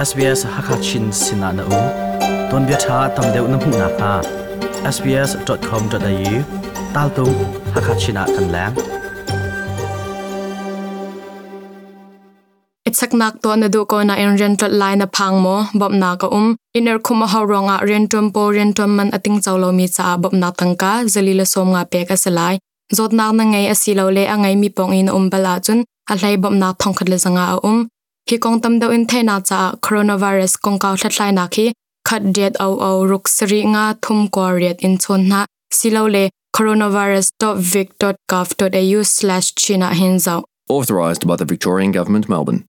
SBS Hakachin sinah na um. Tuanbia ṭha tam deuh na hmuh nakhnga sbs.com.au taltung Hakachin ah kan leng. Ichaknak tuah na duh ko nain rian tlolh lai na phang maw? Bawmhnak a um. Inn erkhum a hau ruangah rianṭuan pawl rianṭuan man a tingco lomi caah bawmhnak tangka zali le 50 pek a si lai. Zawtnak na ngei asilole a ngeimi pawng i na um bal ahcun a hlei bawmhnak 1500 a um. Hi kong tam deuh in theihnak caah coronavirus kongkau hlathlainak hi khat riat o o ruk sarih nga thum kua riat in chawn hna silole coronavirus.vic.gov.au/chin ah hin zoh. Authorised by the Victorian Government, Melbourne.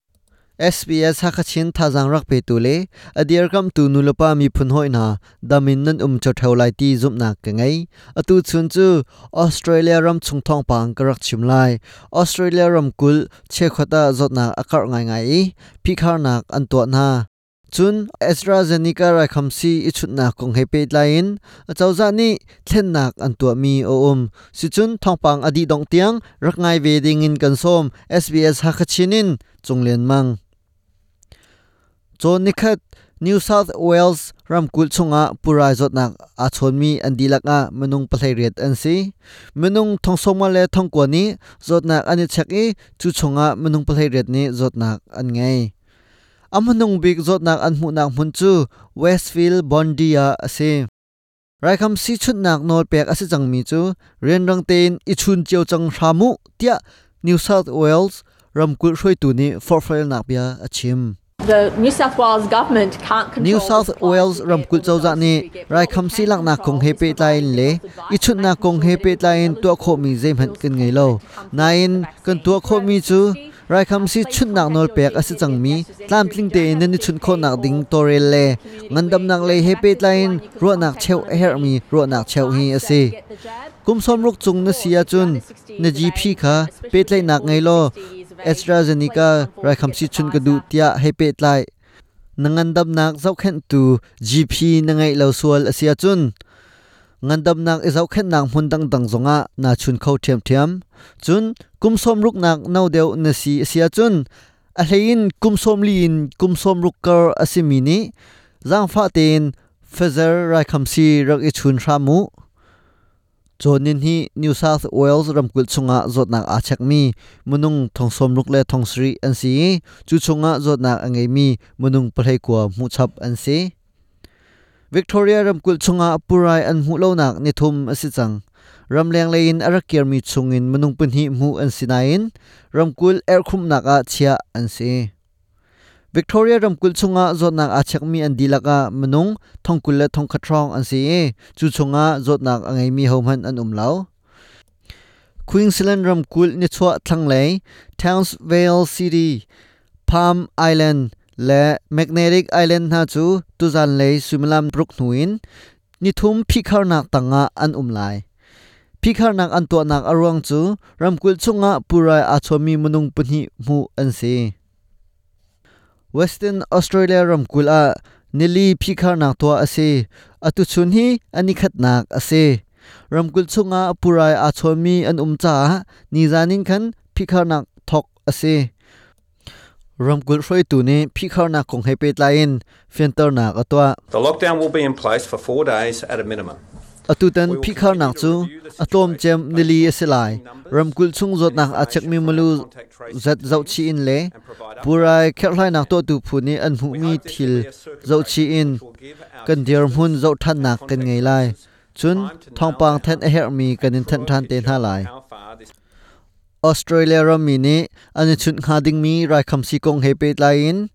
SBS Hakachin thazaang rak petu le a dirkamtu nulepa miphun hawi hna dam in nan um ṭheo lai ti zumhnak ka ngei. Atu chun cu Australia ram chung thawngpang ka rak chim lai. Australia ramkulh cheukhat ah zawtnak a karh ngaingai i phihkharnak an tuah hna. Cun AstraZeneca raikhamsi i chunhnak kong he pehtlai in acozah nih thlennak an tuahmi a um. Sicun thawngpang a dih dongh tiang rak ngai ve ding in kan sawm. SBS Hakachin in Cunglian Mang. Cawn nikhat New South Wales ramkulh chungah purai zawtnak aa chawnmi an dihlak ah minung 18 an si. Minung 90 le 90 nih zawtnak an i chek i cu chungah minung 18 nih zawtnak an ngei. A hmanung bik zawtnak an hmuhnak hmun cu Westfield Bondi ah a si. Raikhamsi chunhnak nawl pek a si cangmi cu rianrang tein i chun cio cang hram u tiah New South Wales ramkulh hruaitu nih forhfialnak bia a chim. The New South Wales government can't control New South Wales ramkulh cozah nih raikhamsi laknak kong he pehtlai in le i chunhnak kong he pehtlai in tuah khawhmi zeihmanh kan ngei lo. Nain kan tuah khawhmi cu Raikhamsi chunhnak nawl pek a si cangmi tlamtling tein nan i chunh khawhnak ding tawlrel le ngandamnak lei he pehtlai in ruahnak cheuh a herhmi ruahnak cheuh hi a si. Kum 60 cung na si ahcun na GP kha pehtlaihnak ngei law AstraZeneca raikhamsi chun ka duh tiah hei pehtlai. Na ngandamnak zohkhenhtu GP na ngeih lo sual a si ahcun ngandamnak i zohkhenhnak hmun dangdang zongah naa chun kho ṭhiamṭhiam. Cun kum 60nak no deuh na si a si ahcun a hleiin kum 40 in kum 60 kar a simi nih zaangfah tein Pfizer raikhamsi rak i chun hram u. Cawnin hi New South Wales ramkulh chungah zawtnak aa chekmi minung 60 le 70 an si i cu chungah zawtnak a ngeimi minung 19 hmuhchap an si. Victoria ramkulh chungah purai an hmuh lonak nithum a si cang. Ramleng lei in a rak kirmi chungin minung pahnih hmuh an si nain ramkulh erhkhumhnak ah chiah an si. Victoria ramkulh chungah zawtnak aa chekmi an dihlak ah minung 20 le 1000 hrawng an si i cu chungah zawtnak a ngeimi hohmanh an um lo. Queensland ramkulh nichuah thlanglei Townsville City Palm Island le Magnetic Island hna cu tuzanlei suimilam ruk hnu in nithum phihkharnak tangah an um lai. Phihkharnak an tuahnak a ruang cu ramkulh chungah purai aa chawmi minung pahnih hmuh an si. Western Australia ramkulh ah nili phihkharnak tuah a si. Atu chun hi a nikhatnak a si. Ramkulh chungah purai aa chawmi an um caah nizan in khan phihkharnak thawk a si. Ramkulh hruaitu nih phihkharnak kong he pehtlai in fianternak a tuah. The lockdown will be in place for 4 days at a minimum. Atutan phihkharnak cu a tlawmcem nili a si lai. Ramkulh chung zawtnak aa chekmi milu zat zohchih in le purai kherhhlainak tuahtu phu nih an hmuhmi thil zohchih in kan dirhmun zohṭhannak kan ngei lai. Cun thawngpang thanh a herhmi kan in thanh ṭhan te hna lai. Australia rammi nih an i chunh hnga dingmi raikhamsi kong he pehtlai in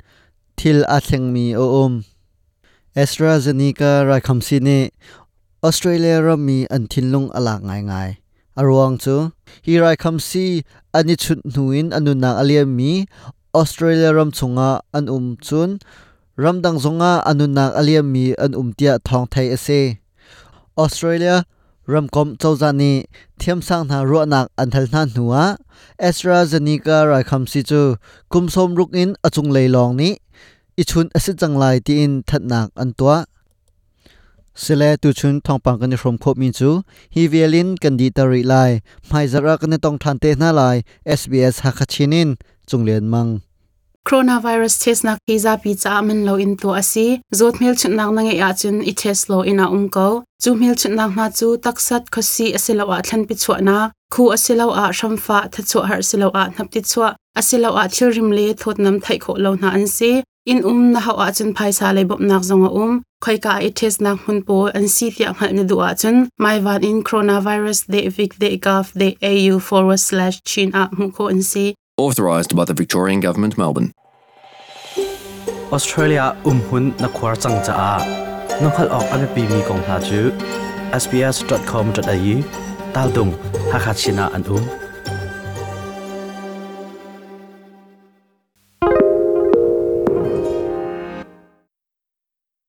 thil aa thlengmi a um. AstraZeneca raikhamsi nih Australia rammi an thinlung a lak ngaingai. A ruang cu hi raikhamsi an i chunh hnu in a nunnak a liammi Australia ram chungah an um cun ramdang zongah a nunnak a liammi an um tiah thawng theih a si. Australia ramkomh cozah nih thiamsang hna ruahnak an hal hna hnuah AstraZeneca raikhamsi cu kum 60 in a cunglei lawng nih i chunh a si cang lai tiin thanhnak an tuah. Sile tuchun thawngpang kan i hrawm khawhmi cu hi vial in kan dihter rih lai. Hmaizarh ah kan i tong ṭhan te hna lai. SBS Hakha Chin in Cunglian Mang. Coronavirus test nak hi zapi caah man lo in tuah a si. Zawt hmelchunhnak na ngeih ahcun i test law inn ah um ko. Cu hmelchunhnak hna cu taksat, khuasih asiloah thlanpi chuahnak, khu asiloah hramfah, thachuah har asiloah hnapti chuah, asiloah thilrim le thawtnam theih khawh lo hna an si. Inn um na hauh ahcun phaisa lei bawmhnak zong a um. Khoika i testnak hmun pawl an si tiah hngalh na duh ahcun maivan in coronavirus.vic.gov.au/chin ah hmuh khawh an si. Authorised by the Victorian Government, Melbourne. Australia umhun na khuar cang caah na hngalh awk a biapimi kong hna cu sbs.com.au taldung Hakha Chin ah an um.